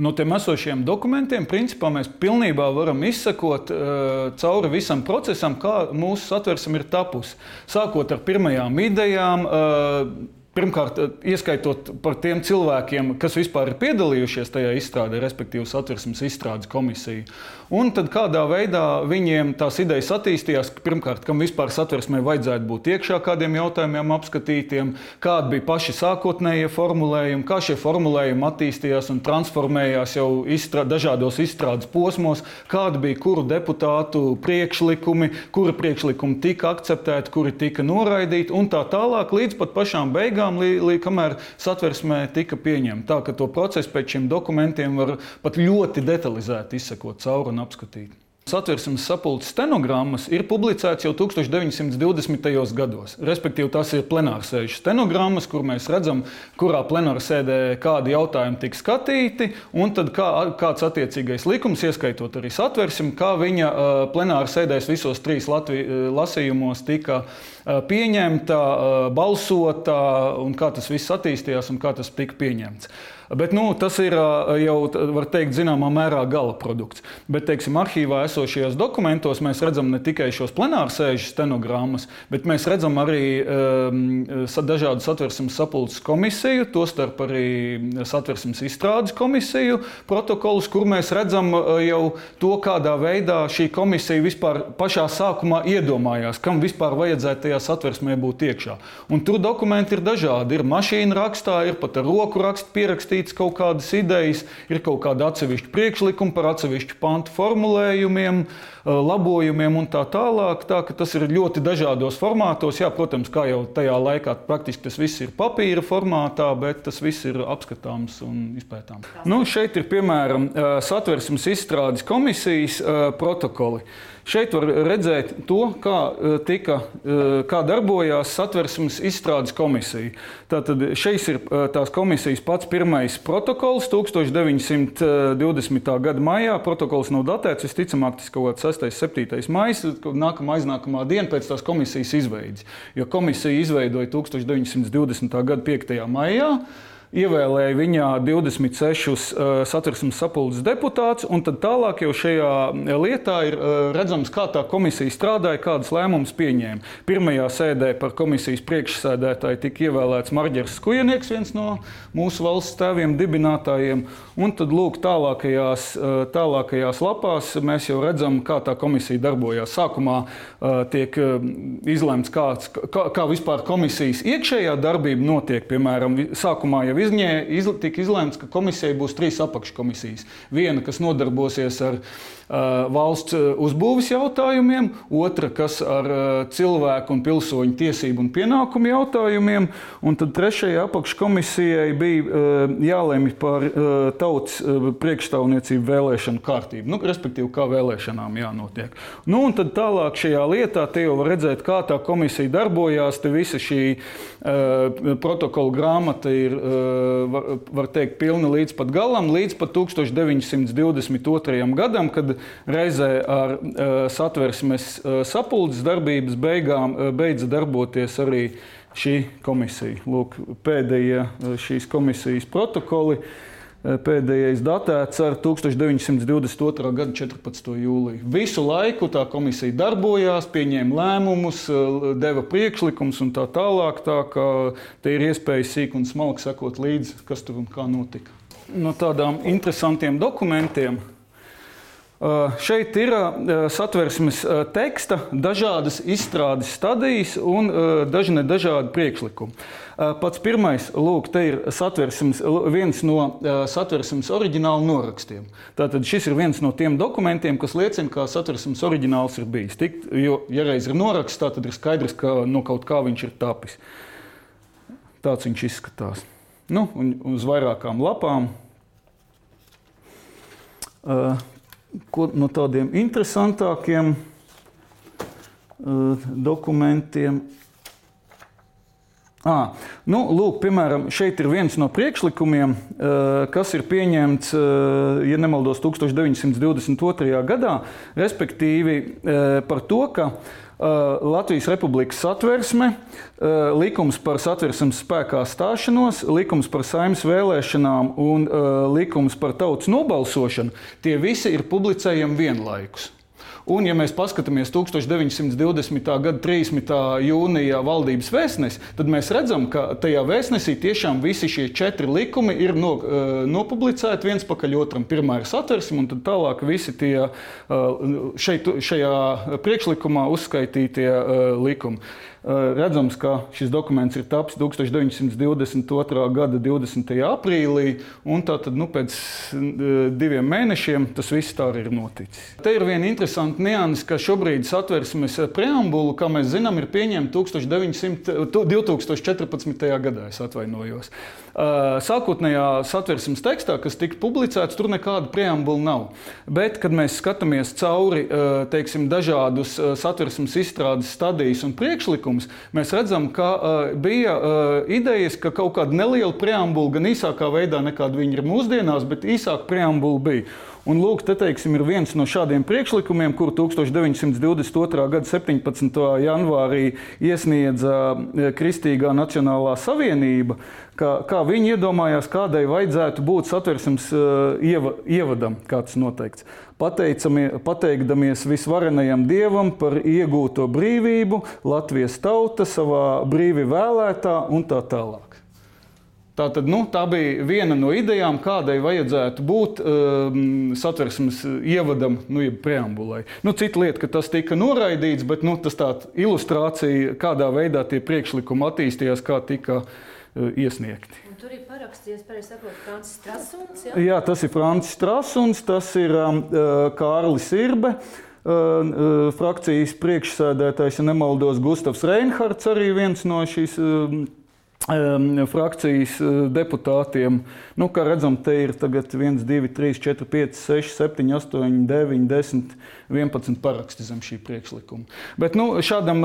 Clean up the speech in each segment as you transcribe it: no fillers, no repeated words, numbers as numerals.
No tiem esošiem dokumentiem, principā, mēs pilnībā varam izsekot cauri visam procesam, kā mūsu Satversme ir tapusi. Sākot ar pirmajām idejām, pirmkārt, ieskaitot par tiem cilvēkiem, kas vispār ir piedalījušies tajā izstrādē, respektīvi Satversmes izstrādes komisiju. Un tad kādā veidā viņiem tās idejas attīstījās, pirmkārt, kam vispār Satversmē vajadzētu būt iekšā kādiem jautājumiem apskatītiem, kādi bija paši sākotnējie formulējumi, kā šie formulējumi attīstījās un transformējās jau dažādos izstrādes posmos, kādi bija kuru deputātu priekšlikumi, kuri priekšlikumi tika akceptēti, kuri tika noraidīti un tā tālāk līdz pat pašām beigām, kamēr Satversmē tika pieņemta. Tā, ka to procesu pēc šiem dokumentiem var pat ļoti detalizēti izsekot cauri un apskatīt. Satversmes sapulces stenogrammas ir publicētas jau 1920. gados. Respektīvi, tās ir plenārsēžu stenogrammas, kur mēs redzam, kurā plenārsēdē kādi jautājumi tika skatīti, un tad kāds attiecīgais likums, ieskaitot arī Satversmi, kā viņa plenārsēdēs visos 3 lasījumos tika pieņemta, balsota, un kā tas viss attīstījās un kā tas tika pieņemts. Bet tas ir jau, var teikt, zināmā mērā gala produkts. Bet, teiksim, arhīvā esošajos dokumentos mēs redzam ne tikai šos plenārsēžu stenogrammas, bet mēs redzam arī dažādu Satversmes sapulces komisiju, tostarp arī Satversmes izstrādes komisiju protokolus, kur mēs redzam jau to, kādā veidā šī komisija vispār pašā sākumā iedomājās, kam vispār vajadzētu tajā Satversmē būt iekšā. Un tur dokumenti ir dažādi. Ir mašīna rakstā, ir pat ar roku rakstu pierakstīti kaut kādas idejas, ir kaut kāda atsevišķa priekšlikuma par atsevišķu pantu formulējumiem, labojumiem un tā tālāk. Tā, ka tas ir ļoti dažādos formātos. Jā, protams, kā jau tajā laikā praktiski tas viss ir papīra formātā, bet tas viss ir apskatāms un izpētāms. Šeit ir, piemēram, Satversmes izstrādes komisijas protokoli. Šeit var redzēt to, kā darbojās Satversmes izstrādes komisija. Tātad šeit ir tās komisijas pats pirmais protokols 1920. gada maijā. Protokols nav datēts, visticamāk, tas kaut kāds 6. 7. maijs, aiznākamā diena pēc tās komisijas izveides. Jo komisija izveidoja 1920. gada 5. maijā. Ievēlēja viņā 26 Satversmes sapulces deputātus, un tad tālāk jau šajā lietā ir redzams, kā tā komisija strādāja, kādas lēmumus pieņēma. Pirmajā sēdē par komisijas priekšsēdētāju tika ievēlēts Marģers Skujenieks, viens no mūsu valsts tēviem dibinātājiem, un tad lūk tālākajās lapās mēs jau redzam, kā tā komisija darbojās. Sākumā tiek izlemts, kā vispār komisijas iekšējā darbība notiek, piemēram, sākumā jau tika izlēmts, ka komisijai būs 3 apakškomisijas. Viena, kas nodarbosies ar valsts uzbūves jautājumiem, otra, kas ar cilvēku un pilsoņu tiesību un pienākumu jautājumiem, un tad 3. apakškomisijai bija jālemj par tautas priekšstāvniecību vēlēšanu kārtību, respektīvi, kā vēlēšanām jānotiek. Un tad tālāk šajā lietā te jau var redzēt, kā tā komisija darbojās, te visa šī protokola grāmata ir, var teikt, pilna līdz pat galam, līdz pat 1922. gadam, kad reizē ar Satversmes sapulces darbības beigām beidza darboties arī šī komisija. Lūk, pēdējie šīs komisijas protokoli, pēdējais datēts ar 1922. gada 14. jūliju. Visu laiku tā komisija darbojās, pieņēma lēmumus, deva priekšlikums un tā tālāk, tā kā te ir iespēja sīk un smalki sekot līdzi, kas tur un kā notika. No tādām interesantiem dokumentiem. Šeit ir Satversmes teksta, dažādas izstrādes stadijas un dažādi priekšlikumi. Pats pirmais, lūk, te ir viens no Satversmes oriģināla norakstiem. Tātad šis ir viens no tiem dokumentiem, kas liecina, kā Satversmes oriģināls ir bijis. Jo, ja reiz ir noraksts, tad ir skaidrs, ka no kaut kā viņš ir tapis. Tāds viņš izskatās. Un uz vairākām lapām. No tādiem interesantākiem dokumentiem. Lūk, piemēram, šeit ir viens no priekšlikumiem, kas ir pieņemts, ja nemaldos, 1922. gadā, respektīvi par to, ka Latvijas Republikas satversme, likums par satversmes spēkā stāšanos, likums par Saeimas vēlēšanām un likums par tautas nobalsošanu, tie visi ir publicējami vienlaikus. Un, ja mēs paskatāmies 1920. gada 30. jūnijā valdības vēstnesi, tad mēs redzam, ka tajā vēstnesī tiešām visi šie 4 likumi ir nopublicēti viens pakaļ otram. Pirmā ir satversme, un tad tālāk visi tie šajā priekšlikumā uzskaitītie likumi. Redzams, ka šis dokuments ir tapis 1922. gada 20. aprīlī, un tātad pēc 2 mēnešiem tas viss tā arī ir noticis. Te ir viena interesanta nianse, ka šobrīd satversmes preambulu, kā mēs zinām, ir pieņemta 2014. gadā, es atvainojos. Sākotnējā satversmes tekstā, kas tika publicēts, tur nekāda preambula nav. Bet, kad mēs skatāmies cauri, dažādus satversmes izstrādes stadijas un priekšlikumus, mēs redzam, ka bija idejas, ka kaut kāda neliela preambula, gan īsākā veidā nekāda viņa ir mūsdienās, bet īsāka preambula bija. Un lūk, te ir viens no šādiem priekšlikumiem, kuru 1922. gada 17. janvārī iesniedza Kristīgā Nacionālā savienība, kā viņi iedomājās, kādai vajadzētu būt satversmes ievadam, kā tas noteikts. Pateikdamies visvarenajam Dievam par iegūto brīvību, Latvijas tauta savā brīvi vēlētā un tā tālāk. Tātad, tā bija viena no idejām, kādai vajadzētu būt satversmes ievadam, jeb preambulai. Cita lieta, ka tas tika noraidīts, bet tas tāda ilustrācija, kādā veidā tie priekšlikumi attīstījās, kā tika iesniegti. Un tur ir parakstījies, pareizi sakot, Francis Strasuns, ja? Jā, tas ir Francis Strasuns, tas ir Kārlis Irbe, frakcijas priekšsēdētājs, ja nemaldos, Gustavs Reinhards, arī viens no šīs frakcijas deputātiem. Kā redzam, te ir tagad 1, 2, 3, 4, 5, 6, 7, 8, 9, 10, 11 paraksti zem šī priekšlikuma. Bet šādam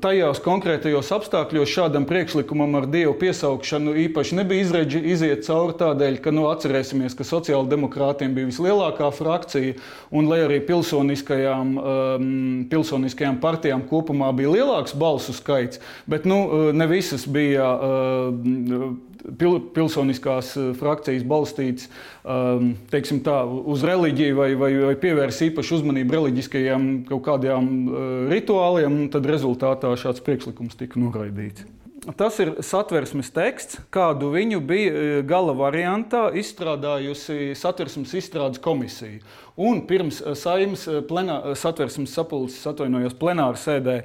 tajās konkrētajos apstākļos šādam priekšlikumam ar Dievu piesaukšanu īpaši nebija iziet cauri tādēļ, ka atcerēsimies, ka sociāldemokrātiem bija vislielākā frakcija, un lai arī pilsoniskajām partijām kopumā bija lielāks balsu skaits, bet ne visas bija pilsoniskās frakcijas balstīts uz reliģiju vai pievērs īpašu uzmanību reliģiskajiem kaut kādiem rituāliem, tad rezultātā šāds priekšlikums tika noraidīts. Tas ir satversmes teksts, kādu viņu bija gala variantā izstrādājusi satversmes izstrādes komisija. Un pirms Saeimas satversmes sapulces, plenāra sēdē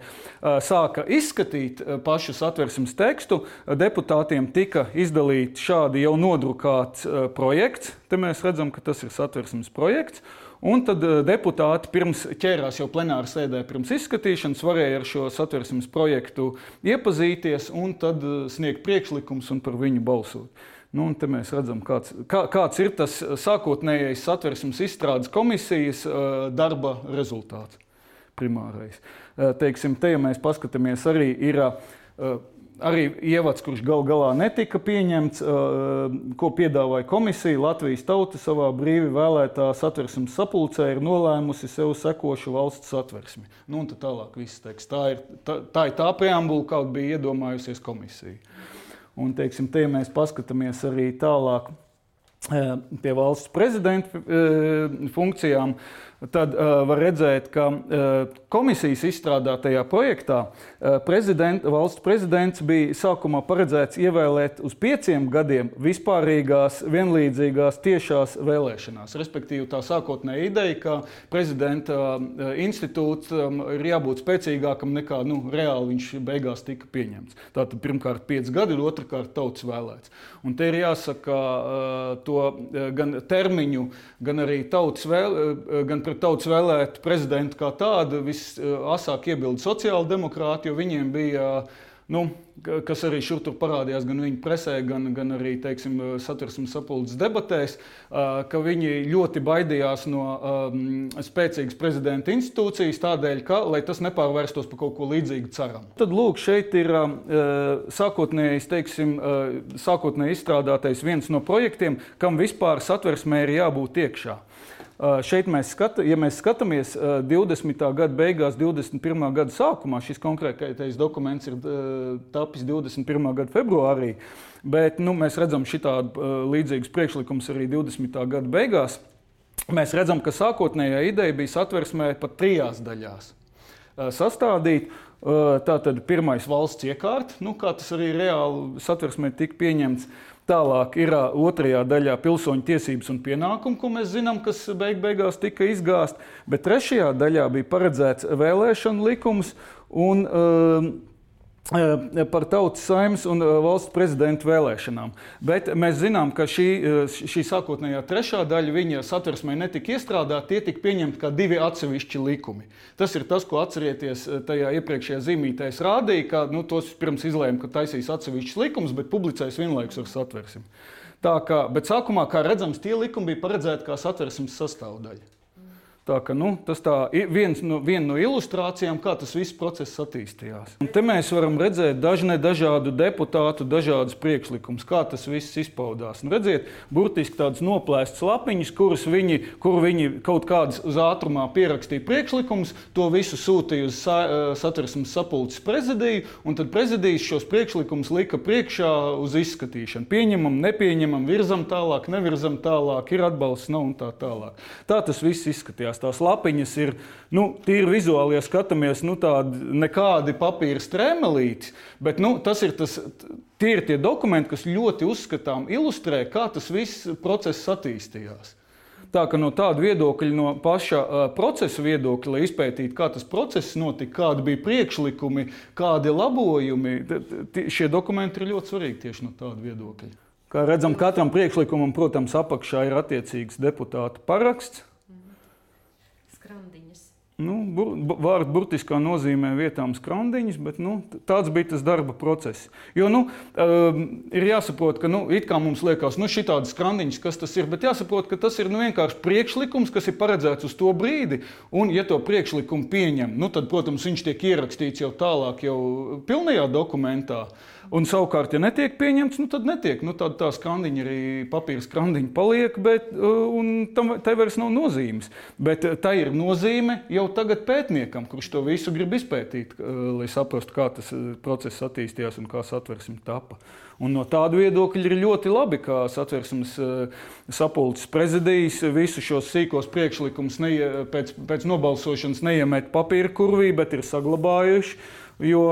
sāka izskatīt pašu satversmes tekstu, deputātiem tika izdalīts šādi jau nodrukāts projekts. Te mēs redzam, ka tas ir satversmes projekts. Un tad deputāti pirms ķērās jau plenāra sēdē pirms izskatīšanas, varēja ar šo satversmes projektu iepazīties un tad sniegt priekšlikums un par viņu balsot. Un te mēs redzam, kāds ir tas sākotnējais satversmes izstrādes komisijas darba rezultāts primārais. Te, ja mēs paskatāmies, arī ir arī ievads, kurš galā netika pieņemts, ko piedāvāja komisija. Latvijas tauta savā brīvi vēlētā satversmes sapulcē ir nolēmusi sev sekošu valsts satversmi. Un tad tālāk viss teiks. Tā ir tā preambula, kāda bija iedomājusies komisija. Un, te, ja mēs paskatāmies arī tālāk pie valsts prezidenta funkcijām, tad var redzēt, ka komisijas izstrādātajā projektā valsts prezidents bija sākumā paredzēts ievēlēt uz 5 gadiem vispārīgās, vienlīdzīgās tiešās vēlēšanās. Respektīvi, tā sākotnēja ideja, ka prezidenta institūts ir jābūt spēcīgākam nekā reāli viņš beigās tika pieņemts. Tātad pirmkārt 5 gadi, otrkārt tautas vēlēts. Un te ir jāsaka to gan termiņu, gan arī gan pret tautas vēlēt prezidentu kā tādu visasāk iebilda sociāldemokrāti, jo viņiem bija, kas arī šur tur parādījās gan viņu presē, gan arī, satversmes sapulces debatēs, ka viņi ļoti baidījās no spēcīgas prezidenta institūcijas tādēļ, lai tas nepārvērstos par kaut ko līdzīgu ceram. Tad lūk, šeit ir sākotnēji izstrādātais viens no projektiem, kam vispār satversmē ir jābūt iekšā. Šeit ja mēs skatāmies 20. gada beigās, 21. gada sākumā, šis konkrētais dokuments ir tapis 21. gada februārī, bet mēs redzam šitādu līdzīgus priekšlikumus arī 20. gada beigās. Mēs redzam, ka sākotnējā ideja bija satversmē pat 3 daļās sastādīt. Tātad pirmais valsts iekārta, kā tas arī reāli satversmē tika pieņemts. Tālāk ir otrajā daļā pilsoņu tiesības un pienākumi, ko mēs zinām, kas beigās tika izgāzt. Bet trešajā daļā bija paredzēts vēlēšanu likums un par tautas saeimas un valsts prezidenta vēlēšanām. Bet mēs zinām, ka šī sākotnējā trešā daļa viņa satversmē netika iestrādāta, tie tika pieņemti kā 2 atsevišķi likumi. Tas ir tas, ko atcerieties tajā iepriekšējā zīmītē es rādīju, ka tos pirms izlēma, ka taisīs atsevišķus likumus, bet publicēs vienlaikus ar satversmi. Bet sākumā, kā redzams, tie likumi bija paredzēti kā satversmes sastāvdaļa. Tā ka, tas viena no ilustrācijām, kā tas viss process attīstījās. Un te mēs varam redzēt dažādu deputātu, dažādas priekšlikumus, kā tas viss izpaudās. Un redziet, burtiski tādas noplēstas lapiņas, kur viņi kaut kādas uz ātrumā pierakstīja priekšlikumus, to visu sūtīja uz satversmes sapulces prezidiju, un tad prezidijas šos priekšlikumus lika priekšā uz izskatīšanu. Pieņemam, nepieņemam, virzam tālāk, nevirzam tālāk, ir atbalsts, nav un tā tālāk. Tā tas viss izskatījās. Tās lapiņas ir, tīri vizuāli, ja skatāmies, tādi nekādi papīra strēmelīti, bet tie ir tie dokumenti, kas ļoti uzskatām ilustrē, kā tas viss process attīstījās. Tā ka no tāda viedokļa, no paša procesa viedokļa, lai izpētītu, kā tas process notika, kādi bija priekšlikumi, kādi labojumi, šie dokumenti ir ļoti svarīgi tieši no tāda viedokļa. Kā redzam, katram priekšlikumam, protams, apakšā ir attiecīgs deputāta paraksts. Skrandiņas. Vārdu burtiskā nozīmē vietām skrandiņas, bet tāds bija tas darba process. Jo ir jāsaprot, ka it kā mums liekas, šitādas skrandiņas, kas tas ir, bet jāsaprot, ka tas ir vienkārši priekšlikums, kas ir paredzēts uz to brīdi, un ja to priekšlikumu pieņem, tad, protams, viņš tiek ierakstīts jau tālāk, jau pilnajā dokumentā. Un savukārt, ja netiek pieņemts, tad netiek. Tad tā skrandiņa arī papīra skrandiņa paliek, un tai vairs nav nozīmes. Bet tā ir nozīme jau tagad pētniekam, kurš to visu grib izpētīt, lai saprastu, kā tas process attīstījās un kā satversme tapa. Un no tāda viedokļa ir ļoti labi, kā satversmes sapulces prezidijas visu šos sīkos priekšlikumus pēc nobalsošanas neiemet papīra kurvī, bet ir saglabājuši. Jo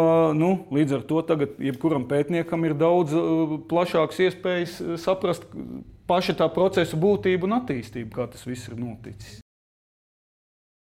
līdz ar to tagad jebkuram pētniekam ir daudz plašākas iespējas saprast paša tā procesa būtību un attīstību, kā tas viss ir noticis.